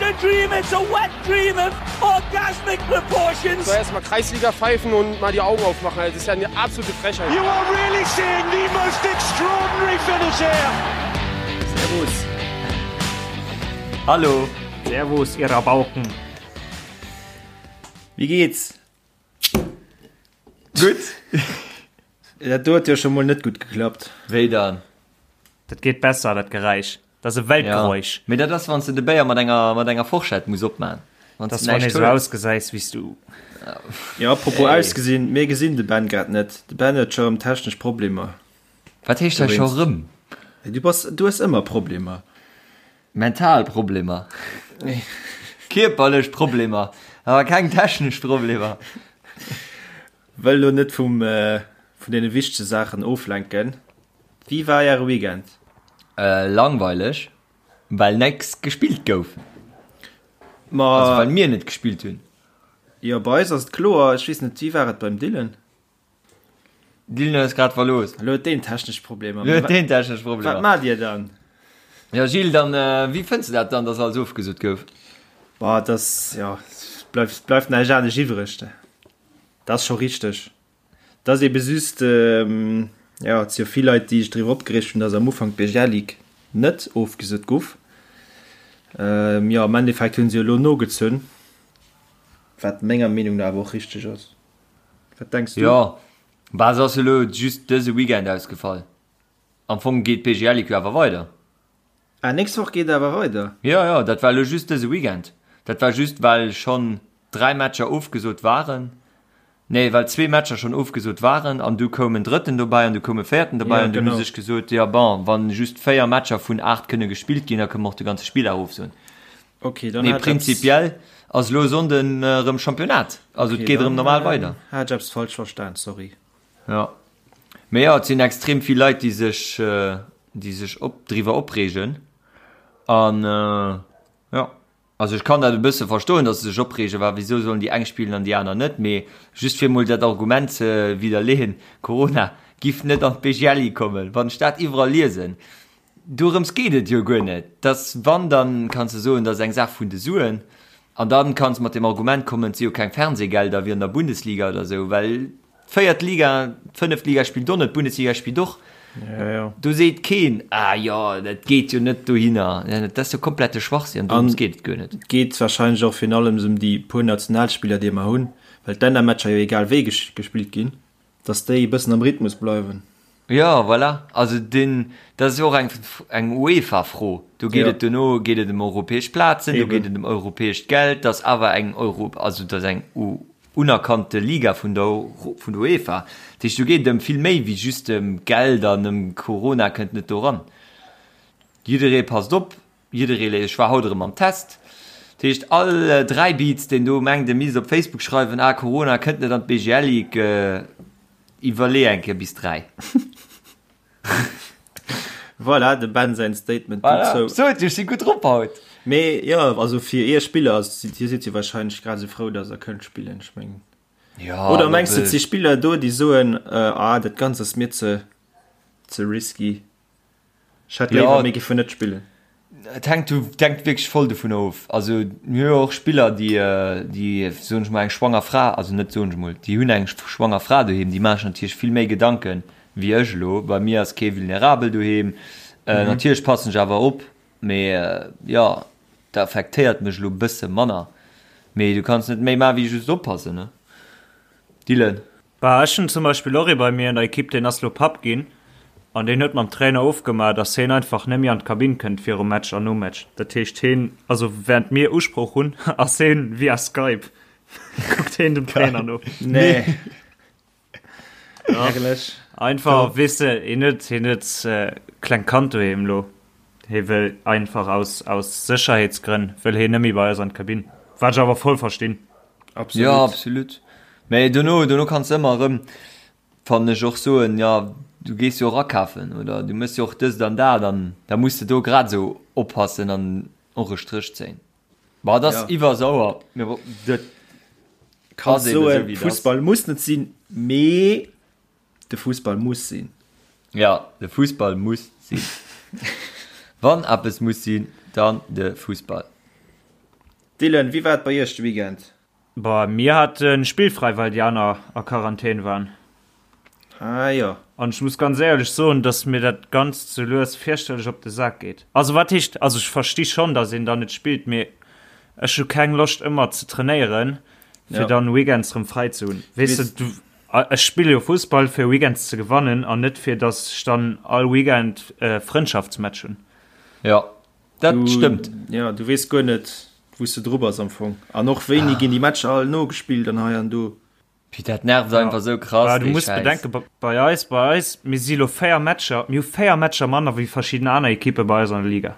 a dream, it's a wet dream of orgasmic proportions. Soll erst mal Kreisliga pfeifen und mal die Augen aufmachen, das ist ja eine absolute Frechheit. You are really seeing the most extraordinary finish here. Servus. Hallo. Servus, ihr Rabauken. Wie geht's? Gutt. Dat do huet jo scho mol net gutt geklappt. Wéi dann? Dat geet besser, dat Geräisch. Dat ass e Weltgeräusch. Ja. Mee dat ass, wann s de de Béier mat enger, mat enger Forschett muss opman. Wann s de näischt hues. Ausgesäis wéi s du. Jo, apropos ausgesinn, mir gesinn de Ben grad net. De Ben huet scho rëm technesch Problemer. Wat heescht hei scho rëm? Du bass, du hues ëmmer Problemer. Mental Problemer. Kierperlech Problemer, awer keng technesch Problemer. Wëll lo net vum, vun deene wichtege Saachen oflenken. Wéi war äre Weekend? Langweileg, well nächst gespillt gouf. Ma. Also well mir net gespillt hunn. Jo, bei eis ass et kloer. Ech weess net, wéi war et beim Dylan? Dylan huet eis grad verlooss. Elo huet deen technesch Problemer. Elo huet deen technesch Problemer. Wat maacht dir dann? Jo Gilles, dann wéi fënns de dat dann, dass alles ofgesot gouf? Boah, et ass, jo, et bleift, bleift näischt anescht iwwreg. Dat ass scho richteg. Et ass ebe just, jo, et si jo vill Leit, déi sech driwwer opgereegt hunn, dass am Ufank d'BGL Ligue net ofgesot guff. Jo, am Endeffekt hu se jo elo nogezunn, wat menger Meenung no awer och richteg ass. Wat denks du? Jo, bah, se ass jo elo just dëse Weekend ausgefall. Am Fong geet d'BGL Ligue jo awer weider. Ah, nächst Woch geet awer weider? Jo, jo, dat war elo just dëse Weekend. Dat war just, well schonn 3 Matcher ofgesot waren. Nee, well zwee Matcher schonn ofgesot waren an du koum en drëtten dobäi an du koum e véierten dobäi an dunn hu sech gesot, jo bon, wa just 4 Matcher vun 8 kënne gespillt ginn, da kënne mer och de ganze Spilldag ofsoen. Okay, dann Mee hat ech eppes. prinzipiell ass elo Sonnden erëm Championnat, also et Okay, geet erëm dann normal weider. hat ech eppes falsch verstan, sorry. Jo. Mee jo, et sinn extrem vill Leit, déi sech, déi sech op, driwwer opreegen an jo. Also ech kann dat e bësse verstoen, datt se sech opreegen, well wisou sollen déi eng spillen an déi aner net? Mee just fir emol dat Argument ze widderleeën, Corona giff net an d'BGLI kommen, wann ech dat iwwerall liesen, dorëms geet et jo guer net. Dass wann, dann kanns de soen, dat ass eng Saach vun de Suen an dann kanns mat dem Argument kommen, et si jo keng Fernsehgelder wéi an der Bundesliga oder esou, well D'véiert Liga, d'fënneft Liga spillt och net, d'Bundesliga spillt och. Ja, ja. Do seet keen, ah jo, dat geet jo net dohinner. Dat ass jo komplette Schwachsinn, an dorëms geet et guer net. Et geet warscheinlech och virun allem ëm déi puer Nationalspiller, déi mer hunn, well d'Lännermatcher jo egal wéi gespillt ginn, dass déi e bëssen am Rhythmus bleiwen. Jo, voilà. Also deen, dat ass jo och eng, eng UEFA-Fro. Do geet et duerno geet et ëm europäesch Plazen, do geet et ëm europäescht Geld. Dat ass awer eng Euro, also dat ass eng unerkannte Liga vun der vun der UEFA. Dat heescht, do geet et ëm vill méi wéi just ëm Geld an ëm Corona kënnt net do ran. Jidderee passt op, jidderee léisst, ech war haut erëm am Test. Dat heescht, all Dräibiz, deen do mengt, e misst op Facebook schreiwen, ah Corona kënnt net an d'BGL Ligue, iwwerlee eng Kéier bis 3. Voilà, dem Ben säin Statement voilà. dozou. Sot, ech si gutt drop haut. Mee jo, also fir iech Spiller, dir sidd jo wahrscheinlech grad esou frou, datt der kënnt spillen, ech mengen. Ja, Oder mengs du, et si Spiller do, déi soen, äh, ah, dat Ganzt ass mir ze, ze risky, ech hätt léiwer, mir géifen net spillen? Et hänkt, hänkt wierklech voll dovun of. Also mir hu jo och Spiller, déi, déi soen ech mol, eng schwanger Fra, also net soen ech mol, déi hunn eng schwanger Fra doheem, déi maache sech natierlech vill méi Gedanken wéi ech elo. Bei mir ass kee vulnerabel doheem. Natierlech passen ech awer op, mee jo, dat affektéiert mech elo e bësse manner. Mee du kanns net méi maache wéi just oppassen, ne Dylan? Bah, ech hunn zum Beispill och ee bei mir an der Ekipp, deen ass lo Papp ginn an deen huet mam Trainer ofgemaach, dass heen einfach net méi an d'Kabinn kënnt virum Match an nom Match. Dat heescht heen, also während mir Usprooch hunn, ass heen via Skype, kuckt heen dem Trainer no. Nee. Herrlech. Einfach, weess de, heen huet, heen huet klengt Kand doheem lo. Hee wëll einfach aus, aus Sécherheetsgrënn wëll heen net méi bei eis an d'Kabinn. Wat ech awer voll verstinn. Absolut. Jo, absolut. Mee dono, dono kanns de ëmmer erëm, fannen ech, och soen, jo, du gees jo och akafen oder du méchs jo och dëst an dat an da muss de do grad esou oppassen an och e Stréch zéien. Bon, et ass Ja. iwwer sauer, mee bon, dat Kanns ass eben esou, soen, wéi et ass. Fussball muss net sinn, mee De Fussball muss sinn. Ja, de Fussball muss sinn. Wann eppes muss sinn, dann de Fussball. Dylan, wéi war et bei iech de Weekend? Boah, mir hate spillfrei, well déi aner a Quarantän waren. Ah jo. An ech muss ganz éierlech soen, dass mir dat Ganzt sou lues fierchterlech op de Sak geet. Also wat heescht, also ech versti schonn, dass een dann net spillt, mee ech hu keng Loscht ëmmer ze trainéieren, fir Ja. dann weekends rëm fräi ze hunn. Weess de, Weess. du, ech spille jo Fussball fir weekends ze gewannen an net fir dass ech dann all Weekend Frëndschaftsmatch hunn. Jo, dat Du, stëmmt. ja, du weess guer net, wou s de dru bass am Fong. An och wéini ginn déi Matcher all nogespillt an hei an do. Pih, dat nervt einfach sou krass, Bah, du dee muss Schäiss. bedenken, bei eis, bei eis, mir si lo 4 Matcher, mir hu 4 Matcher manner wéi verschidden aner Ekippe bei eis an der Liga.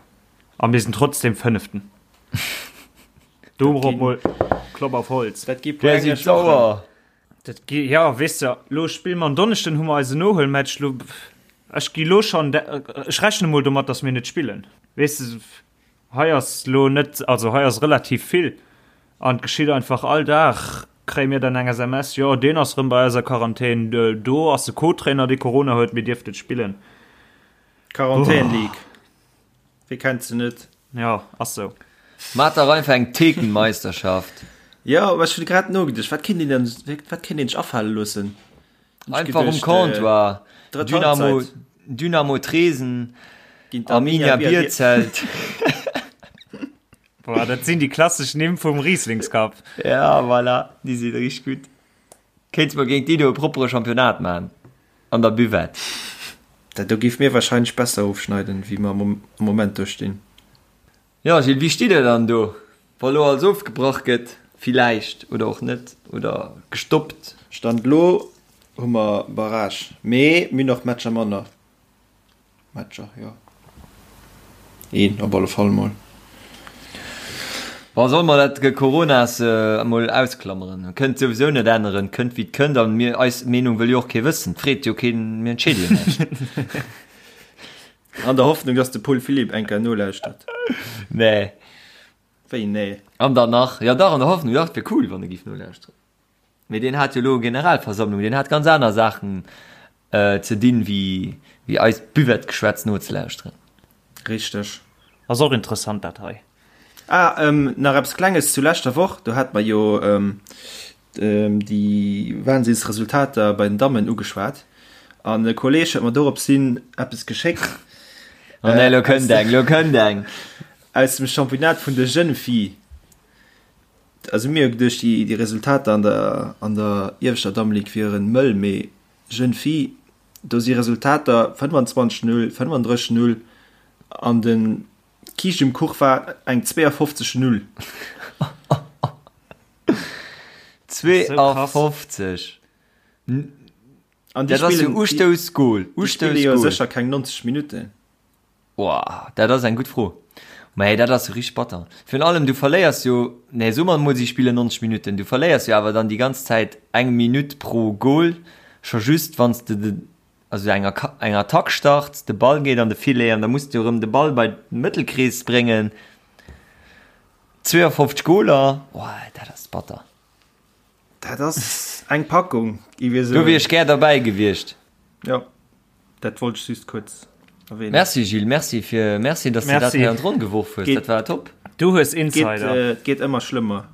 A mir sinn trotzdem Fënneften. Dorop mol Klopp auf Holz. Dat gi puer Där si englesch Wochen. sauer. Dat gi, ja, weess de, lo spille mer en Donneschden, hu mer eisen Nohuelmatch, lo, ech gi lo schonn, ech rechne mol domat, datt mir net spillen. Weess de, Hei ass lo net, also hei ass relativ vill an et geschitt einfach all Dag kréie mir dann eng SMS, jo deen ass rëm bei eis a Quarantän, do ass de Co-Trainer dee Corona huet, mir dierft net spillen. Quarantän League, wee kennt se net? Jo, ass sou. Maat dach einfach eng Thekenmeisterschaft. Jo, mä ech hunn grad nogeduecht, wat kéint een dann, wat kéint een sech afale loossen? Einfach um Comptoir. Dynamo, Dynamo Tresen, Arminia Bierzelt. Boah, dat sinn déi klassesch Nimm vum Rieslingscup. Ja, voilà, déi sinn richteg gutt. Kéints mer géint déi do e proppere Championnat man an der Buvette. Dat do géif mir wahrscheinlech besser ofschneiden, wéi mer am Moment do stinn. Jo Gilles, wéi steet der dann do, wa lo alles ofgebrach gëtt, villäicht, oder och net, oder gestoppt? Stand lo hu mer Barrage, mee mir hunn och Matcher manner. Matcher, jo een op alle Fall mol. Bon, solle mer dat Coronas emol ausklammeren? Kënnt souwisou net änneren, kënnt wéi et kënnt, an mir, eis Meenung wëll jo och kee wëssen, freet jo keen, mir entscheede jo näischt. An der Hoffnung, dass de Paul Philipp eng Kéier nolauschtert. Nee. Wéi nee? An dann nach, jo dach, an der Hoffnung, dach, et wier cool, wann e giff nolauschteren. Mee deen hat jo elo Generalversammlung, deen hat ganz aner Saachen ze dinn, wéi wéi eist Buvette-Geschwätz nozelauschteren. Richteg. Ass och interessant dat hei. Ah, nach eppes Klenges zu leschter Woch, do hate mer jo déi Wahnsinnsresultater bei den Dammen ugeschwat an e Kolleg huet mer dorops hin eppes geschéckt. Oh nee, lo kënnt eng, lo kënnt eng! Aus dem Championnat vun de Jeunes Filles. Also mir hu geduecht, déi Resultater an der an der ieweschter Dammeligue wieren mëll, mee Jeunes Filles, do si Resultater 25, 0, 35, 0 an de Kiischt um Kuch war eng 52, 0. 52! An déi Dat ass jo spillen, déi, Ustoussgol, déi spille jo Ustoussgol. sécher keng 90 Minutten. Woah, dat ass eng gutt Fro. Mä dat ass jo richteg batter. Virun allem, du verléiers jo, nee, soe mer emol, si spillen 90 Minutten, du verléiers jo awer dann déi ganz Zäit eng Minutt pro Gol, scho just wann s de de, also eng eng Attack starts, de Ball geet an de Filet an da muss du erëm de Ball bei de Mëttelkrees bréngen. 52 Goler, woah, dat ass batter. Dat ass eng Packung, gi wir Do wier soen. ech gär derbäi gewiescht. Jo, dat wollt ech just kuerz erwähnen. Merci Gilles, merci fir, merci dass de dat Merci. hei an d'Ronn geworf hues, Geet, dat war top. Du hues geet, Insider. äh, geet ëmmer schlëmmer.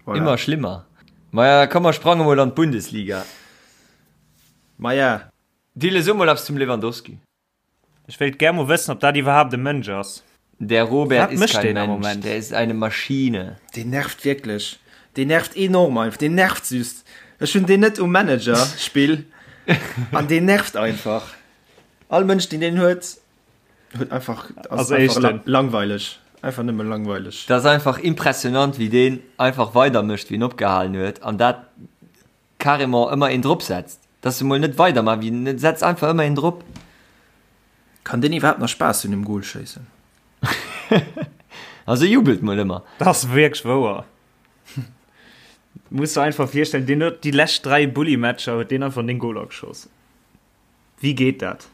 Voilà. Immer schlimmer. Maja, komm mer sprange mol an d'Bundesliga. Maja. Dille, so mol eppes zum Lewandowski. Ech wéilt gär mol wëssen, ob dat iwwerhaapt e Mënsch ass. Der Robert Wat ist mécht kein deen am Mensch, Moment? der ist eine Maschine. Deen nervt wierklech. Deen nervt enorm einfach. Deen nervt just. Ech hunn deen net um Manager Spill an deen nervt einfach. All Mënsch deen deen huet, huet einfach ass Ass einfach Éischten. langweileg. Einfach nëmme langweileg. Dat ass einfach impressionant wéi deen einfach weider mécht wéi en opgehalen huet an dat carrément ëmmer een drop setzt. Dass se mol net weider man wéi en setzt einfach ëmmer een drop. Kann deen iwwerhaapt nach Spaass hunn um Goal schéissen? Also jubelt mol ëmmer. Dat ass wierklech wouer. Muss der einfach virstellen, deen huet déi lescht 3 Bulli-Matcher huet deen einfach 9 Goler geschoss. Wéi geet dat?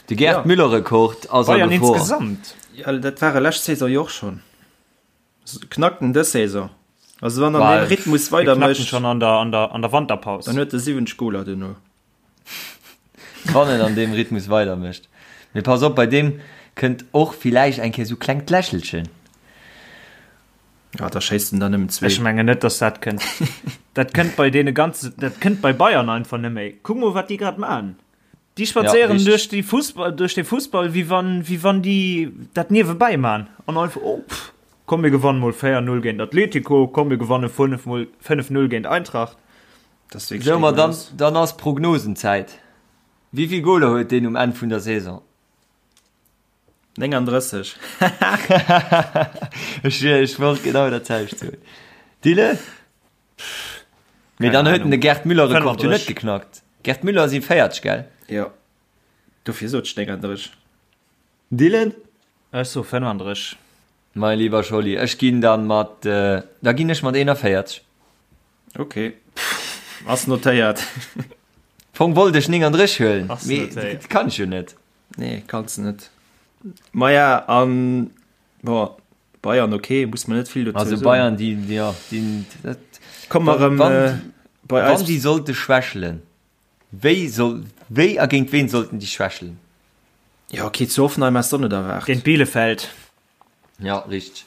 De Gerd Ja. Müller-Rekord ass a Bayern Gefor. insgesamt. Ja, dat war e lescht Saison jo och schonn. Knackt en dës Saison? Also wann an deem Rhythmus weider mécht. Schon an der, an der, an der Wanterpaus. Dann huet e 70 Goler duerno. Wann en an deem Rhythmus weider mécht. Mee pass op, bei deem kënnt och villäicht eng Kéier sou klengt Lächelchen. Ja, da schéisst en der nëmmen zwee. Ech mengen net, dass dat kënnt. Dat kënnt bei deene ganze, dat kënnt bei Bayern einfach net méi. Kuck mol, wat déi grad maachen. Déi spadséieren ja, duerch déi Fussball, duerch de Fussball, wéi wann, wéi wann déi dat niewebäi maachen. An einfach, oh, pff, komm mir gewannen mol 4-0 géint Atletico, komm mir gewanne 5 mol 5-0 géint Eintracht. Das ist so, ma dann, dann ass Prognosenzäit. Wéi vill Goler huet deen um Enn vun der Saison? 39. Ech, ech wollt genau dat selwecht soen. Dille? Mee dann huet en de Gerd Müller Rekord jo net geknackt. Gerd Müller si 40, gell? Jo. Dofir sot ech 39. Dylan? Ech soe 35. Mein lieber Scholli, ech ginn dann mat, da ginn ech mat 41. Ok, ass notéiert. Fong wollt ech 39 huelen, mee dat kann ech jo net. Nee, kanns de net. Maja, an bon, Bayern ok, muss man net vill dozou soen. Also Bayern, déi, jo, déi, dat, Komme mer erëm bei eis. Wann déi sollte schwächelen, wéi soll, wéi a géint ween sollten déi schwächelen? Jo ok, zu Hoffenheim häss de och net erwaart. Géint Bielefeld. Ja, richteg.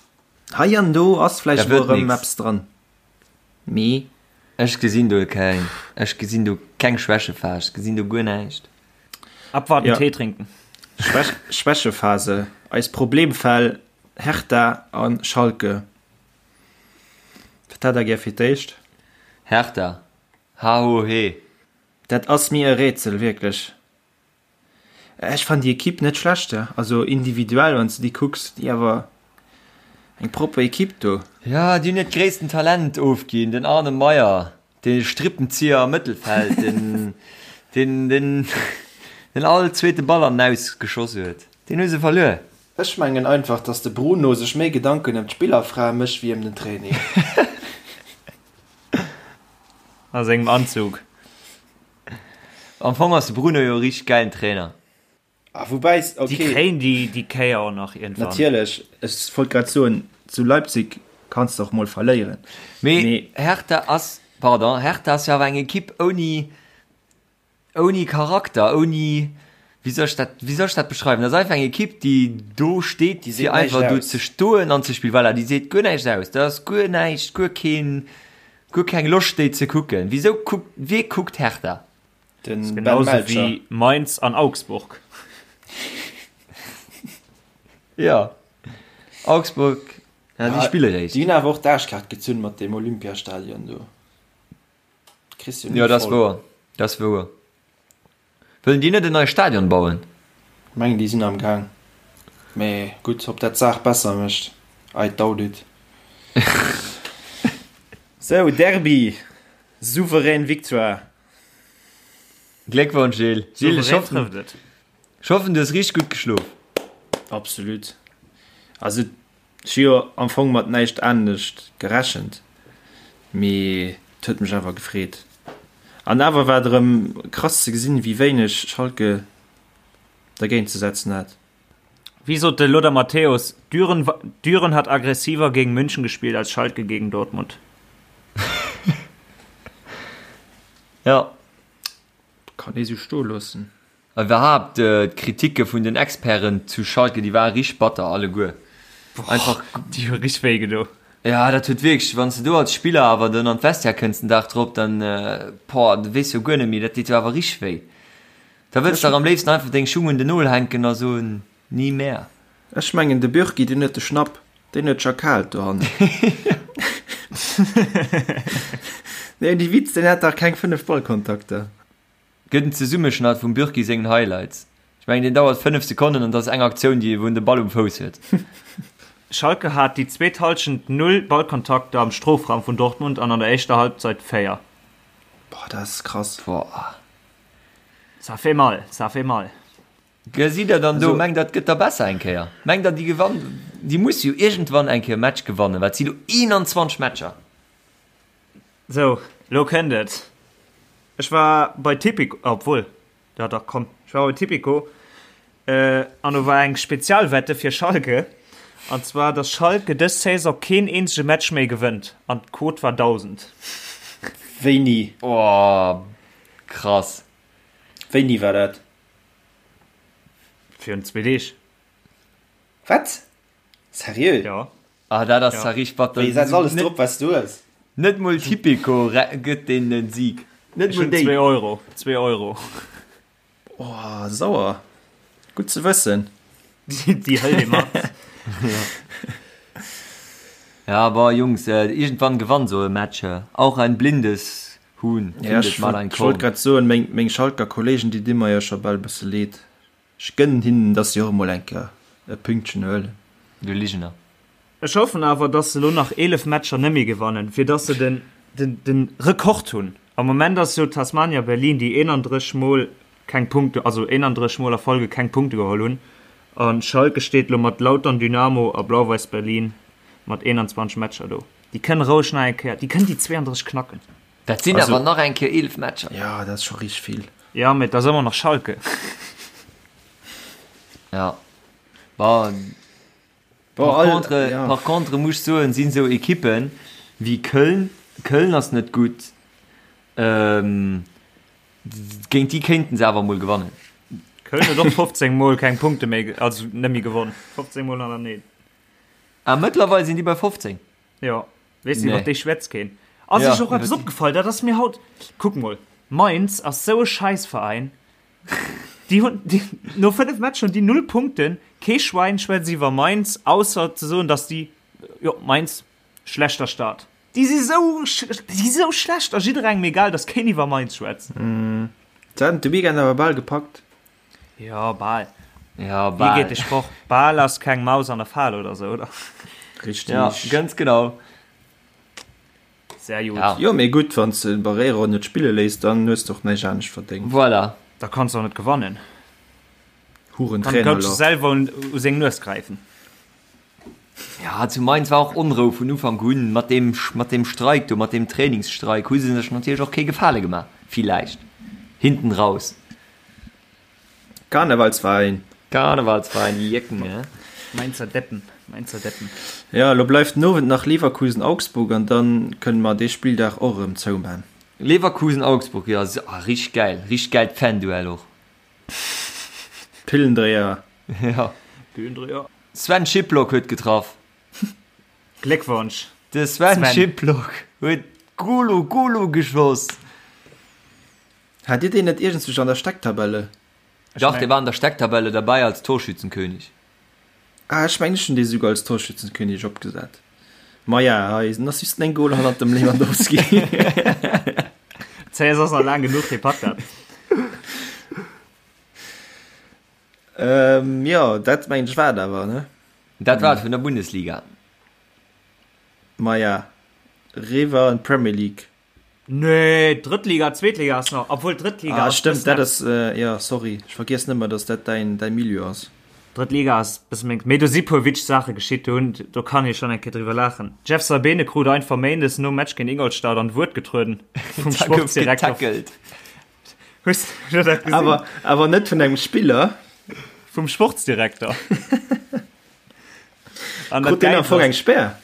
Hei an do ass vläicht mol erëm eppes dran, mee. Ech gesinn do keng, ech gesinn do keng Schwächephas, ech gesinn do guer näischt. Abwarten, Tee trinken. Schwächephase, eis Problemfäll Hertha a Schalke. Wat hätt der gär fir d'éischt? Hertha, ha ho he. Dat ass mir e Rätsel, wierklech. Ech fannen déi Equipe net schlecht, also individuell wann s de déi kucks, déi awer eng propper Equipe do. Jo, déi hunn hiert gréissten Talent ofginn, den Arne Meyer, de Strippenzieher am Mëttelfeld, den den den den all zweete Ball an den Aus geschoss huet, deen hu se verluer. Ech mengen einfach, dass de Bruno sech méi Gedanken ëm d'Spillerfrae mécht wéi ëm den Training. A sengem Anzug. Am Fong ass de Bruno jo e richteg gäilen Trainer. Ah, woubäi, okay. Déi kréien déi, déi Kéier och nach iergendwann. Natierlech, ech wollt grad soen, zu Leipzig kanns de och mol verléieren. Mee, Mee Hertha ass, pardon, Hertha ass jo awer eng Ekipp ouni, ouni Charakter, ouni, wéi soll ech dat, wéi soll ech dat beschreiwen? Dat ass einfach eng Ekipp, déi do steet, déi fir einfach do ze stoen an ze spillen. Voilà, déi seet guer näischt aus. Dat ass guer näischt, guer keen, Guer keng Loscht déi ze kucken. Wisou kuckt, wee kuckt Hertha? Den Ben Genauso Melcher. wéi Mainz an Augsburg. Ja. Augsburg, ja, déi spille réischt. Déi hunn awer och d'Aarschkaart gezunn mat deem Olympiastadion do. Kriss jo ni Ja, dat ass voll. wouer. Dat ass wouer. Wëllen déi net en neie Stadion bauen? Mengen déi sinn am Gaang, mee gutt, ob dat d'Saach besser mécht, I doubt it. Sou, Derby, souverän Victoire. Gléckwonsch Gilles! Gilles, ech hoffen, ech hoffen du hues richteg gutt geschlof. Absolut. Also Ech hu jo am Fong mat näischt anescht gerechent, mee et huet mech awer gefreet. An awer war et erëm krass ze gesinn, wéi wéineg Schalke dergéint ze setzen hat. Wéi sot de Lothar Matthäus, Düren, Düren hat aggressiver gegen München gespielt als Schalke gegen Dortmund. Ja. Kann ee sou stoe loossen. Iwwerhaapt d'Kritike vun den Experten zu Schalke, déi ware richteg batter alleguer. Einfach. Déi hu richteg wéi gedo. Ja, dat huet wierklech, wann s de do als Spiller awer dann an d'Vestiaire kënns den Dag drop, dann, boah, du weess jo guer net méi, dat deet jo awer richteg wéi. Da wëlls de dach am léifsten einfach deng Schung un den Nol hänken a soen, Nie mehr. Ech mengen de Bürki, deen huet de Schnapp, deen huet scho kal dohannen. Nee, dee Witz, deen hat dach keng 5 Ballkontakter. Gëtt en Zesummeschnatt vum Bürki sengen Highlights. Ech mengen deen dauert 5 Sekonnen an dat ass eng Aktioun déi wou en de Ball um Fouss huet. Schalke hat déi zweet Hallschent 0 Ballkontakter am Strofraum vun Dortmund an an der éischter Halbzeit 4. Boah, dat ass krass. Boah. Ça fait mal, ça fait mal. Gesitt der dann do, mengt der et gëtt da besser eng Kéier? Mengt der déi gewann, déi musse jo iergendwann eng Kéier e Match gewannen, well et si lo 21 Matcher. Sou, lo kënnt et. Ech war bei Tipico, obwuel, jo dach, komm, ech war bei Tipico an do war eng Spezialwette fir Schalke, an zwar, dass Schalke dës Saison keen eenzege Match méi gewënnt an d'Quote war 1.000. Wéini? Oh, krass. Wéini war dat? Virun zwee Deeg. Wat? Seriö? Jo. Ah, dat ass zwar richteg batter. Wéi, setz alles drop, wat s du hues. Net mol Tipico gëtt deenen en Sieg. Net Ech mol hunn déi. zwee Euro. Zwee Euro. Oh, sauer. Gutt ze wëssen. Déi hëlt ee mat. Ja, bon, Jungs, iergendwann gewannt sou e Match. Auch ein blindes Huhn Ja, findet ech mal ein wollt, ech wollt Korn. grad soen, meng, meng Schalker Kollegen, déi di mer jo scho bal e bësse leed. Ech gënnen hinnen, dass si och emol eng Kéier e Pünktchen huelen. Du Ligener. Ech hoffen awer, dass se elo nach 11 Matcher nemmi gewannen, fir dass se den den Rekord hunn. Am Moment ass jo Tasmania Berlin, déi 31 mol keng Punkte, also 31 mol a Folge keng Punkte geholl hunn, an Schalke steet elo mat Lautern, Dynamo a Blau-Weiß Berlin mat 21 Matcher do. Déi kënnen roueg nach eng Kéier, déi kënnen déi 32 knacken. Dat sinn awer nach eng Kéier 11 Matcher. Jo, dat ass scho richteg vill. Jo, mee et ass ëmmer nach Schalke. Ja, bon. Par contre, par contre muss ech soen, sinn esou Ekippen wéi Köln, Köln ass net gutt, géint déi kéinten se awer mol gewannen. Köln huet och 15 mol keng Punkte méi, also net méi gewonn, 15 mol hannerteneen. Ah, mëttlerweil sinn déi bei 15? Jo, weess de, iwwer déi schwätzt keen. Ass iech och eppes opgefall? Dat ass mir haut, kuck mol, Mainz ass sou e Schäissveräin. Déi hunn, déi, no 5 Matcher hunn déi 0 Punkten. Kee Schwäin schwätzt iwwer Mainz, ausser ze soen, dass déi, jo, Mainz, schlechter Start. Déi si sou, déi si sou schlecht a jidderengem egal, dass keen iwwer Mainz schwätzt. Se haten de Weekend awer bal gepackt. Jo, bal. Jo, Wéi bal. geet de Sproch? Bal ass keng Maus an der Fal oder sou, oder? Richtig. Ja, ganz genau. Sehr gut. Ja. Jo, mee gutt, wann s de den Barreiro net spille léiss, dann hues de och näischt anescht verdéngt. Voilà. Da kanns de och net gewannen. Huren Kann Coach Trainerloch. selwer un, u seng Nues gräifen. Ja, zu Mainz war och Onrou vun Ufank un. Mat deem, mat deem Streik do, mat deem Trainingsstreik hu se sech natierlech och kee Gefale gemaach, villäicht hinten raus. Karnevalsverein. Karnevalsverein, déi Jécken, ne? Mainzer Deppen, Mainzer Deppen. Jo, elo bleift den Owend nach Leverkusen-Augsburg an dann kënne mer dee Spilldag och erëm zouman. Leverkusen-Augsburg, jo, ah, richteg gäil, richteg gäilt Fan-Duell och. Pillendréier. Jo. Pillendréier. Sven Schipplock huet getraff. Gléckwonsch, De Sven Sven. Schipplock huet Golo Golo geschoss. Hat Dir deen net iergendswousch an der Stecktabelle? Dach, dee war an der Stecktabelle derbäi als Torschützenkönig. Ah, ech mengen ech hunn dee souguer als Torschützenkönig opgesat. Maja, hei ass just eng Goal hannert dem Lewandowski. D'Saison ass nach laang genuch, dee packt dat. Ähm, jo, dat mengen ech war et awer, ne? Dat war et vun der Bundesliga. Maja, riwwer an d'Premier League. Nee, Drëttliga, Zweetliga ass nach, obwuel Drëttliga ah, ass stëmmt, dat ass äh, ja sorry, ech vergiessen ëmmer, dass dat däin däi Milieu ass. Drëttliga ass bësse meng, mee do si puer witzeg Saache geschitt, do hunn, do kann ee schonn eng Kéier driwwer laachen. Jeff Saibene krut einfach méindes nom Match géint Ingolstadt an d'Wuert getrueden vum Da gouf Sportsdirektor. getackelt. Hues du dat gesinn? Awer awer net vun engem Spiller. Vum Sportsdirektor. An dat Krut deen am Gäilt Fong ass, eng Spär?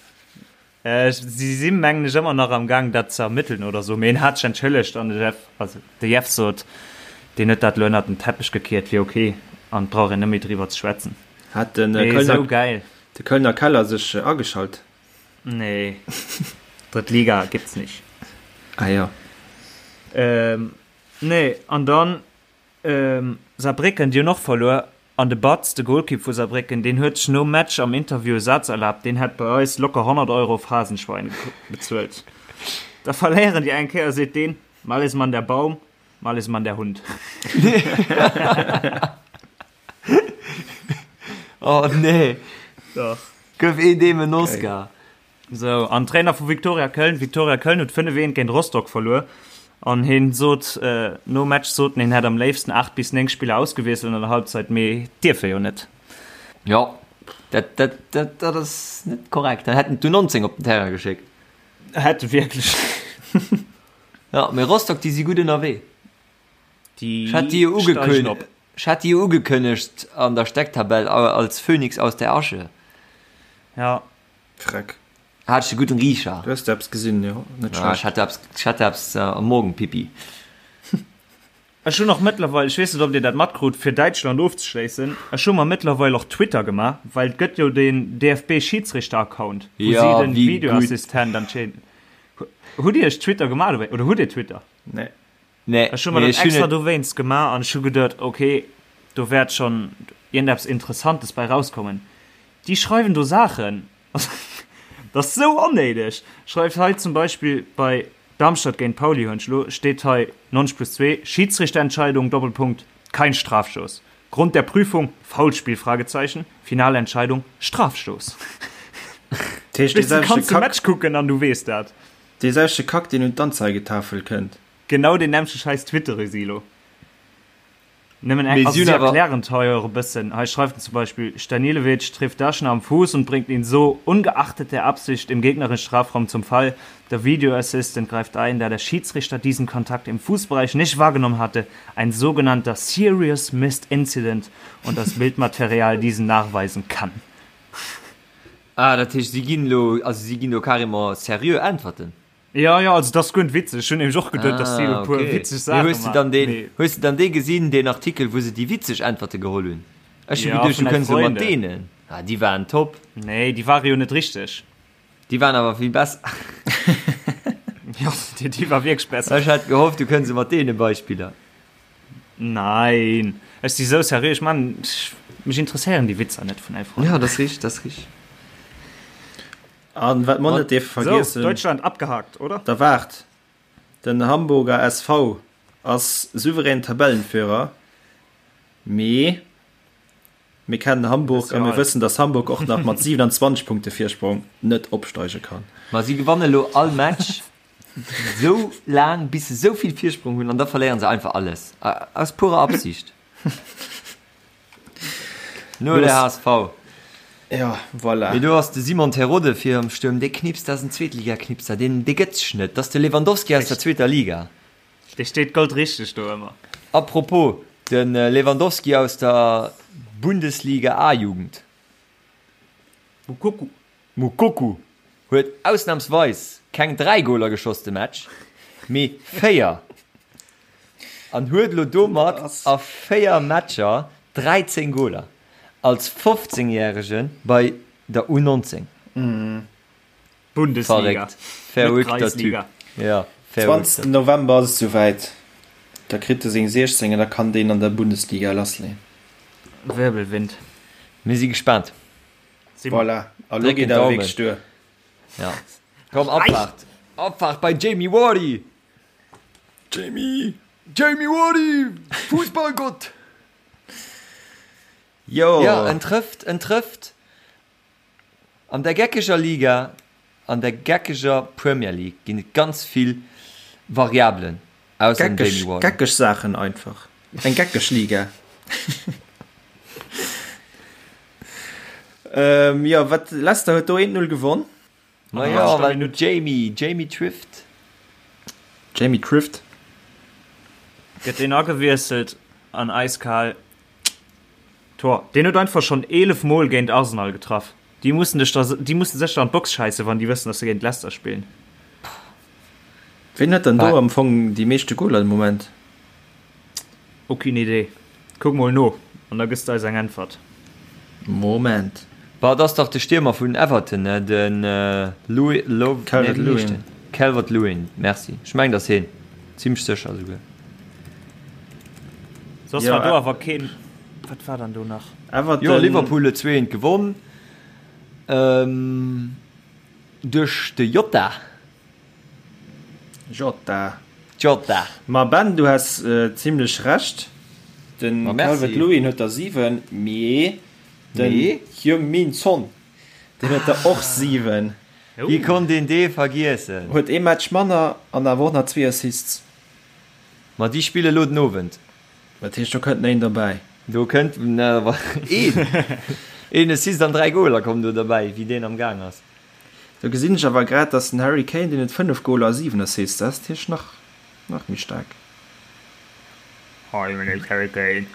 Si si mengen ech ëmmer nach am Gaang dat ze ermëtteln oder sou, mee en hat sech entschëllegt an de Jeff, also de Jeff sot, deen huet dat elo ënnert den Teppech gekiert, wier ok an et brauch een net méi driwwer ze schwätzen. Hat de Mee Kölner, sou gäil. de Kölner Keller sech ageschalt? Nee, Drëtt Liga gibt's nicht. Ah jo. Nee, an dann Saarbrécken, déi hunn och verluer. An de Batz, de Golkipp vu Saarbrécken, deen huet sech nom Match am Interview e Saz erlaabt, deen hätt bei eis locker 100 Euro Phrasenschwein bezuelt. Da verléieren déi eng Kéier, seet deen, mal ist man der Baum, mal ist man der Hund. Oh nee! Dach. Gëff een deem en Oscar. Sou, an Trainer vu Viktoria Köln, Viktoria Köln huet 5, 1 géint Rostock verluer an hien sot nom Match sot en, hien hätt am léifsten 8 bis 9 Spiller ausgewiesselt an der Halbzeit, mee dierf e jo net. Jo, dat, dat, dat, dat ass net korrekt. Dann hätten d'U19 op den Terrain geschéckt. Hätte wierklech. Jo, mee Rostock, déi si gutt ënnerwee. Déi Ech hat déi jo steigen ugekënn, op. ech hat déi jo ugekënnegt an der Stecktabell als Phönix aus der Asche. Ja. Freck. Hat ech e gudden Riecher. Du hues eppes gesinn, jo, net Ja, ech schlecht. hat eppes, ech hat eppes am Morgenpipi. Ech hunn och mëttlerweil, ech weess net ob dir dat matkrut, fir Däitschland ofzeschléissen, ech hu mer mëttlerweil och Twitter gemaach, well et gëtt jo deen DFB-Schidsrichter-Account, wou si Ja, den wéi gutt. Videoassistent anscheinend. Hutt dir iech Twitter gemaach dowéi oder hutt dir Twitter? Nee. Nee, Ech hu mer mee dat ech hunn extra et. dowéinst gemaach an ech hu geduet, ok, do wäert schonn iergendeppes Interessantes bei rauskommen. Déi schreiwen do Saachen, Dat ass sou onnéideg! Schreift hei zum Beispill bei Darmstadt géint Pauli hunn ech elo, steet hei 90 plus 2, Schiedsrichterentscheidung, Doppelpunkt, kein Strafstoß. Grund der Prüfung, Foulspiel, Fragezeichen, finale Entscheidung, Strafstoß. Dat heescht, dee Weess du, selwechte kanns de Kack, Match kucken an du weess dat. dee selwechte Kack, deen un d'Anzeigetafel kënnt. Genau deen nämmlechte Schäiss twittere si elo. Nëmmen eng, Mee also si hunn si awer. erklären et hei och e bëssen. Hei schreift en zum Beispill, Stanilevic trifft Daschner am Fuß und bringt ihn so, ungeachtet der Absicht, im gegnerischen Strafraum zum Fall. Der Video Assistant greift ein, da der Schiedsrichter diesen Kontakt im Fußbereich nicht wahrgenommen hatte, ein sogenannter Serious Missed Incident und das Bildmaterial diesen nachweisen kann. Ah, dat heescht, si ginn elo, also si ginn do carrément seriö Äntwerten? Jo, jo, also dat ass guer net witzeg. Ech hunn nämlech och geduet, dass si Ah, e puer okay. witzeg Mee Saache hues de dann maachen. deen, Mee hues de dann dee gesinn, deen Artikel, wou se déi witzeg Äntwerte geholl hunn? Ech hu ja, geduecht, du vun Elf kënns elo mat Freunde. deenen. Ah, déi waren top. Nee, déi ware jo net richteg. Déi waren awer vill besser. Jo, déi, déi war wierklech besser. Ech hat gehofft, du kënns elo mat deene Beispiller. Nein, ech si sou seriö. Ech man, ech, mech interesséieren déi Witzer net vun Elf Ja, Freunde. dat ass richteg, dat ass richteg. An wat mer net dierfe So, vergiessen, Deutschland abgehakt, oder? Da waart, den Hamburger SV ass souverän Tabellenführer, mee mir kennen Hamburg a mir wëssen, dass Hamburg och nach mat 27 Punkte Virsprong net opsteige kann. Ma si gewanne lo all Match sou laang, bis se sou vill Virsprong hunn, an da verléieren se einfach alles. Aus purer Absicht. Nur der HSV. Ja, voilà. Mee do ass de Simon Terodde fir am Stuerm, dee knipst, dat ass en Zweetliga-Knipser, deen, dee gëtt sech net. Dat ass de Lewandowski aus der zweeter Liga. Dee steet goldrichteg do ëmmer. A propos, de Lewandowski aus der Bundesliga A-Jugend. Moukoko. Moukoko huet ausnamsweis keng 3 Goler geschoss de Match, mee 4 an huet elo domat a 4 Matcher 13 Goler als 15 järege bei der U19. Bundesliga, Verréckt, net verrückter Typ. Kreisliga. Ja, verrückter. 20 November ass et souwäit, da kritt e seng 16 an da kann deen an der Bundesliga lassleeën. Wirbelwind. Mir si gespaant. Voilà, a lo geet awer wierklech duer. Ja. Komm, Abfahrt. Abfahrt bei Jamie Vardy. Jamie, Jamie Vardy, Fußballgott. Jo. Ja, en trëfft, en trëfft an der geckeger Liga, an der geckeger Premier League ginn et ganz vill Variabelen. Ausser dem Jamie Warden. Geckeg Saachen einfach. Eng geckeg Liga. ähm, jo, wat Leicester huet do 1-0 gewonn. Ma jo, well den Jamie, Jamie Trift. Jamie Trift. Gëtt deen agewiesselt an eiskal Tor. Deen huet einfach schonn 11 Mol géint Arsenal getraff. Déi mussen dech da, déi mussen sécher an d'Box schäissen, wann déi wëssen, dass se géint Leicester spillen. Ween huet dann do am Fong déi meeschte Goler de Moment? Aucune idée. Kuck mol no an da gëss de eis eng Äntwert. Moment. Bah, et ass dach de Stiermer vun Everton, ne? Den Louis, Lo, nee, wéi heescht den? Calvert-Lewin. Merci. Ech mengen, et ass heen. Zimlech sécher esouguer. Soss war do awer keen. Wat war dann do nach? Everton. Jo, Liverpool huet 2 eent gewonn. Duerch de Jota. Jota. Jota. Ma Ben, du has zimlech Recht. Den Ma merci. Calvert-Lewin huet der 7, mee den Mee? Heung-Min Son, deen huet der och 7. Wéi konnt een dee vergiessen? Huet ee Match manner an awer och nach zwee Assists. Ma déi spille lo den Owend. Dat heescht, do kënnt nach een derbäi. Do kënnt nach een. Een Assist an 3 Goler kommen do derbäi, wéi deen am Gaang ass. Do gesinn ech awer grad, dass den Harry Kane, deen huet 5 Goler a 7 Assists, dat ass natierlech nach, nach méi staark. Hi, my name is Harry Kane.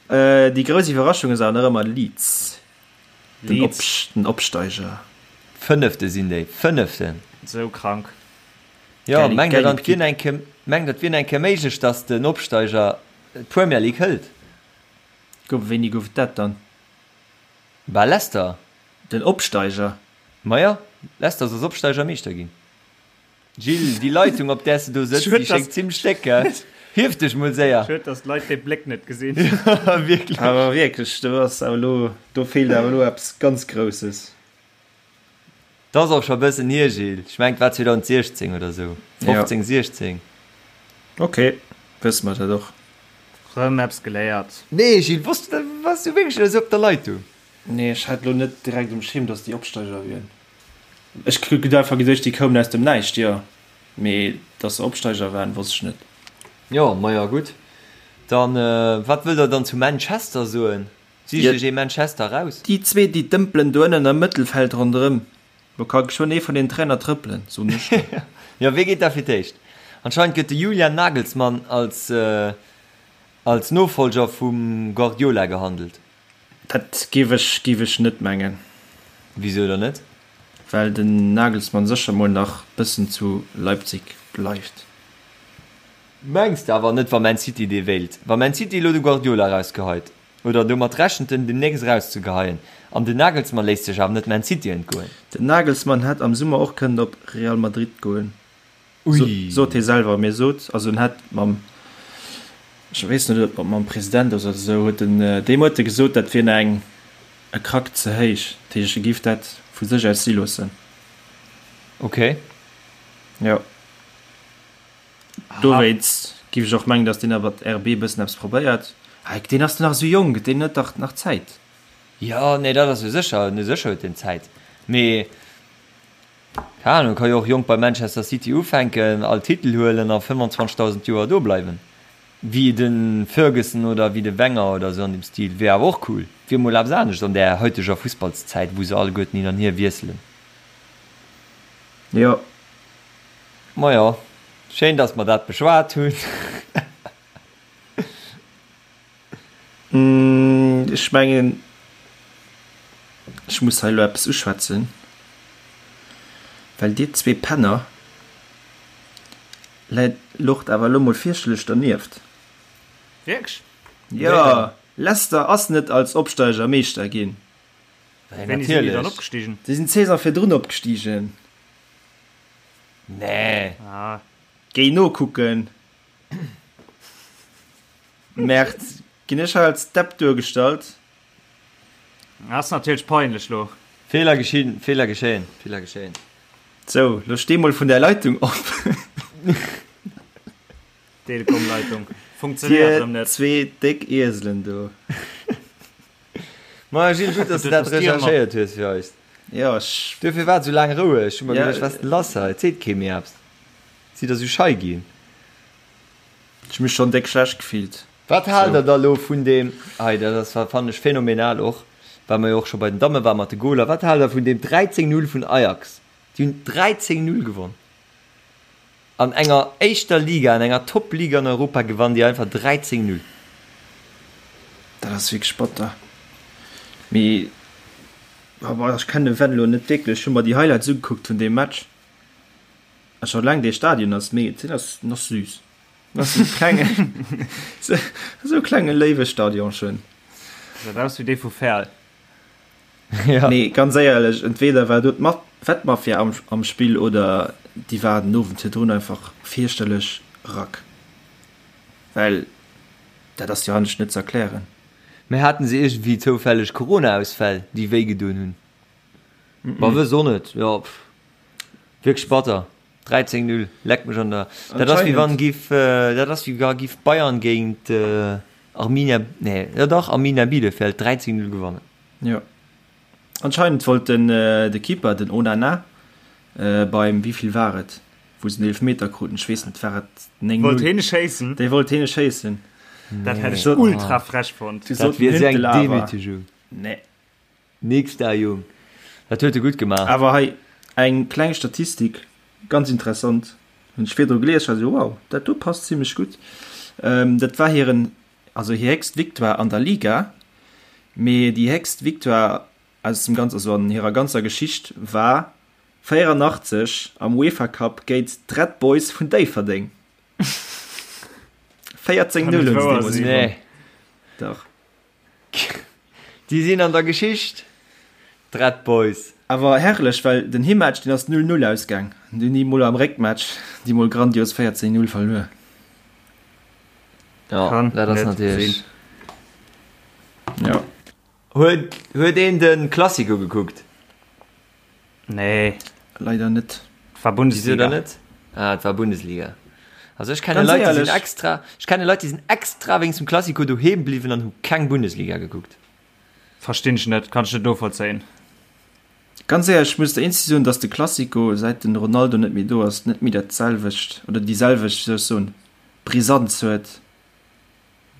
Déi grouss Iwwerraschung ass awer nach ëmmer Leeds, den Leeds. den Opsteiger. Fënnefte sinn déi, Fënneften! Sou krank. Jo, mengt der dann, et wier eng Kéier, mengt der, et wier eng Kéier méiglech, datt den Opsteiger d'Premier League hëlt? Gouf, wéini gouf et dat dann? Bah, Leicester. Den Opsteiger? Maja, Leicester ass als Opsteiger Meeschter ginn. Gilles, déi Leitung op där s de do sëtz, déi schéngt zimlech déck, gell? Hief dech mol séier! Schued, dass d'Leit dee Bléck net gesinn. Wierklech. Awer wierklech, do ass awer elo, do feelt awer elo eppes ganz Grousses. Dat ass och scho e bëssen hier, Gilles. Ech mengen, et war 2016 oder esou. 15, 16. Ok, wësse mer dat och. Rëm eppes geléiert. Nee, Gilles, wosst du dat? Waars du wierklech esou op der Leitung? Nee, ech hat elo net direkt um Schierm, dass déi Opsteiger wieren. Ech hunn einfach geduecht, déi koumen aus dem Näischt, jo. Mee dass se Opsteiger waren, wosst ech net. Jo, maja gutt. Dann, wat wëllt der dann zu Manchester soen? Sicht iech ee Manchester raus. Déi zwee, déi dëmpelen do ënnen am Mëttelfeld ronderëm. Do ka geschwënn ee vun den Trainer trëppelen, soen ech der. Jo, wee geet da fir d'éischt? Anscheinend gëtt de Julian Nagelsmann als als Nofolger vum Guardiola gehandelt. Dat géif ech géif ech net mengen. Wisou dann net? Well den Nagelsmann sécher mol nach bëssen zu Leipzig bleift. Mengs de awer net, wa Man City dee wéilt? Wa Man City elo de Guardiola erausgeheit, oder domat rechent en demnächst erauszegeheien, an den Nagelsmann léisst sech awer net Man City entgoen. Den Nagelsmann hätt am Summer och kënnen op Real Madrid goen. Ui. Sot hie selwer. Mee sot, also en hätt mam, ech weess net, ob mam President ass oder esou, huet en deem huet e gesot, dat wier nach eng e Krack ze héich. Dat heescht, e géif dat vu sech aus si loossen. Ok. Jo. Dowéinst géif ech och mengen, datt deen awer RB e bëssen eppes probéiert. Hei, deen ass nach esou jonk, deen huet dach nach Zäit. Jo, nee, dat ass jo sécher, sécher huet deen Zäit. Mee Keng Ahnung, ka jo och jonk bei Manchester City ufänken, all Titel huelen a 25.000 Joer do bleiwen. Wéi de Ferguson oder wéi de Wenger oder sou an deem Stil. Wier awer och cool. Wier mol eppes anescht an där haiteger Fussballszäit, wou se alleguerten hin an hier wiesselen. Jo. Majo, schéin dass mer dat beschwat hunn. Ech mengen, ech muss hei elo eppes uschwätzen, well dir zwee Penner läit locht awer elo mol fierchterlech dernieft. Wierklech? Jo, Leicester ass net als Opsteiger Meeschter ginn. Wéini sinn déi dann opgestigen? Déi sinn d'Saison virdrun opgestigen. Nee. Géi nokucken. Merd, ginn ech hei als Depp duergestallt? Ass natierlech peinlech lo. Fehler geschehen, Fehler geschehen, Fehler geschehen. Sou, lo steh mol vun där Leitung op. Telekom-Leitung funktionéiert erëm net. Dir zwee déck Ieselen do. Maja Gilles, gutt, dass du dat recherchéiert hues fir eis. Jo, ech. Duerfir war et sou laang roueg. Ech hu mer geduecht, wat ass denn lass hei? Et seet kee méi eppes. Sidd der sou schei ginn? Ech mech schon déck schlecht gefillt. Wat haalt der da lo vun deem, hei dat ass fannen ech phänomenal och, well mer jo och scho bei den Damme waren mat de Goler, wat haalt der vun deem 13, 0 vun Ajax? Déi hunn 13, 0 gewonn an enger éischter Liga, an enger Top-Liga an Europa gewannen déi einfach 13, 0. Dat ass wierklech batter. Mee ech kennen de Venlo net wierklech, ech hu mer déi Highlights ugekuckt vun deem Match. A scho laang dee Stadion ass mee den ass den ass süß. Den ass esou klenge esou klenge léiwe Stadionchen. Gesäit aus wéi dee vu Verl. Ja. Nee, ganz éierlech, entweder war do d'Wettmafia am, am Spill oder déi war den Owend virdrun einfach fierchterlech rack. Well dat ass jo anescht net ze erklären. Mee haten se iergendwéi zoufälleg Corona-Ausfäll, déi wéi gedoen hunn? Ma wëss och net, jo pff. Wierklech batter. 13, 0, leck mech an der. Dat ass wéi wann giff, dat ass wéi wa giff Bayern géint Arminia, nee, jo dach, Arminia Bielefeld 13, 0 gewannen. Jo. Anscheinend wollt den de Keeper, den Onana, beim, wéivill war et, wou se den Eelefmeter kruten, ech weess net, war et 9, 0? Wollt heen schéissen? Dee wollt heen schéissen. Dat hätt ech ultra frech fonnt. Dat wier esou eng Demütigung. Nee. Nix da Jung, dat huet e gutt gemaach. Awer hei eng kleng Statistik, ganz interessant, hunn ech virdru gelies, war esou wow, dat do passt zimlech gutt. Dat war hiren, also hir héchst Victoire an der Liga, mee déi héchst Victoire aus dem ganz, also an hirer ganzer Geschicht war. 84 am UEFA Cup géint d'Red Boys vun Déifferdeng. 14 0 hunn se deemools gewonnen. Nee. Dach. Déi sinn an der Geschicht, d'Red Boys. Awer herrlech, well den Himmatch deen ass 0, 0 ausgaang. An dunn déi mol am Réckmatch déi mol grandios 14, 0 verluer. Ja, Kann dat ass net natierlech. sinn. Ja. Huet, huet een de Classico gekuckt? Nee. Leider net. Et war Wieso Bundesliga. dann net? Ah, et war Bundesliga. Also ech kenne Ganz Leit, déi sinn éierlech. extra, ech kenne Leit, déi sinn extra wéinst dem Classico doheem bliwwen an hu keng Bundesliga gekuckt. Verstinn ech net, kann ech net novollzéien. Ganz éierlech, ech muss der eenzeg soen, dass de Classico, säit den Ronaldo net méi do ass, net méi dat selwecht oder déi selwecht, wéi soll ech soen, Brisanz huet,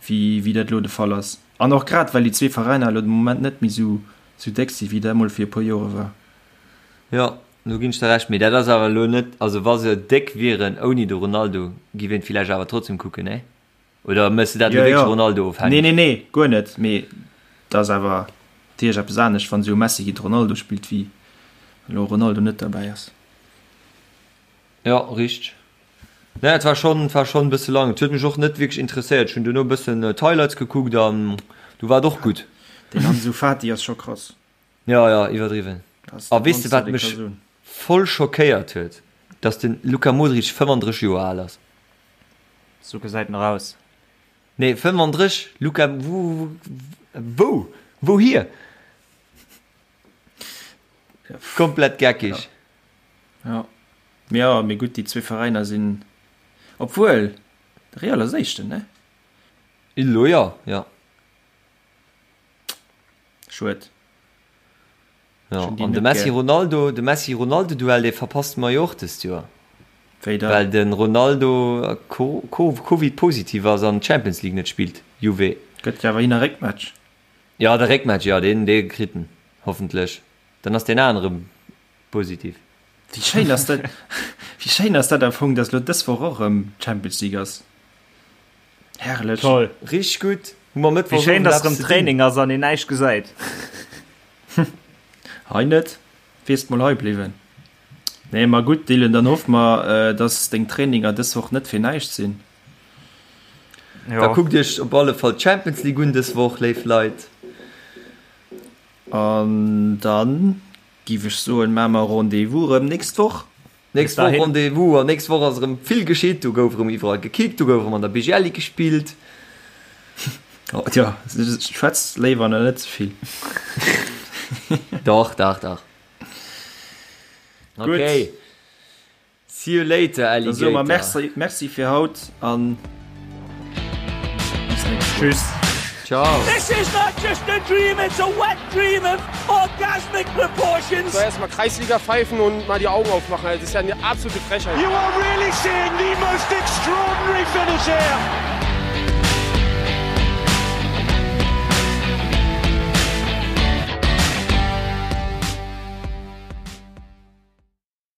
wéi wéi dat elo de Fall ass. An och grad well déi zwee Veräiner elo de Moment net méi sou sou déck si wéi dat emol fir e puer Jore war. Jo, do ginn ech der Recht, mee dat ass awer elo net, also wa se déck wieren ouni de Ronaldo, giff een villäicht awer trotzdem kucken, nee? Oder méchs de dat elo Jo, wierklech jo. Ronaldo-ofhängeg? Nee, nee, nee, guer net, mee dat ass awer natierlech eppes anescht, wann esou e Messi géint Ronaldo spillt, wéi wann elo Ronaldo net derbäi ass. Jo, richteg. Nee, et war schonn, et war schonn e bësse lang. Et huet mech och net wierklech interesséiert. Ech hunn duerno e bëssen d'Highlights gekuckt an du war et och gutt. Den Ansu Fati ass scho krass. Jo, jo, iwwerdriwwen. A A weess de wat mech voll schockéiert huet? Dass de Luka Modric 35 Joer al ass. Sou gesäit en och aus. Nee, 35, Luka, wou, wou, wouhier? Komplett geckig. Ja. Ja, mee gutt, déi zwee Veräiner sinn, obwuel, de Real ass Éischten, ne? Elo jo, jo. Schued. Ja, an de Messi-Ronaldo, de Messi-Ronaldo-Duell, dee verpasste mer jo och dëst Joer. Wéi dann? Well de Ronaldo Covid-positiv ass an d'Champions League net spillt, Juve. Gëtt jo awer hin a Réckmatch. Jo, de Réckmatch, jo, deen, dee kritt en hoffentlech. Dann ass deen anere positiv. Wéi schéin ass dat, wéi schéin ass dat am Fong, dass elo dës Woch och erëm Champions League ass. Herrlech. Toll. Richteg gutt. Hu mer Wéi Mëttwochs schéin, Owend dass eppes erëm ze dinn. Training ass an een näischt gesäit. Hei net, wiers mol hei bliwwen. Nee, ma gutt Dylan, dann hoffe mer, dass deng Traininger dës Woch net fir näischt sinn. Da Jo. kuckt iech op alle Fall d'Champions League un dës Woch, léif Leit. An dann Giff ech soen, maa mer Rendez-vous rem nächst Woch. Nächst Woch Rendez-vous an nächst Woch ass erëm vill geschitt. Do gouf erëm iwwerall gekickt, do gouf erëm an der BGL Ligue gespillt. Oh, tja, schwätz léiwer nach net ze vill. Dach, dach, dach. Okay. See you later, Da soe mer Alligator. Merci, merci fir haut an bis nächst Woch. Tschüss. Ciao. This is not just a dream, it's a wet dream of orgasmic proportions. So erstmal Kreisliga pfeifen und mal die Augen aufmachen. Also, das ist ja eine absolute Frechheit. You are really seeing the most extraordinary finish here.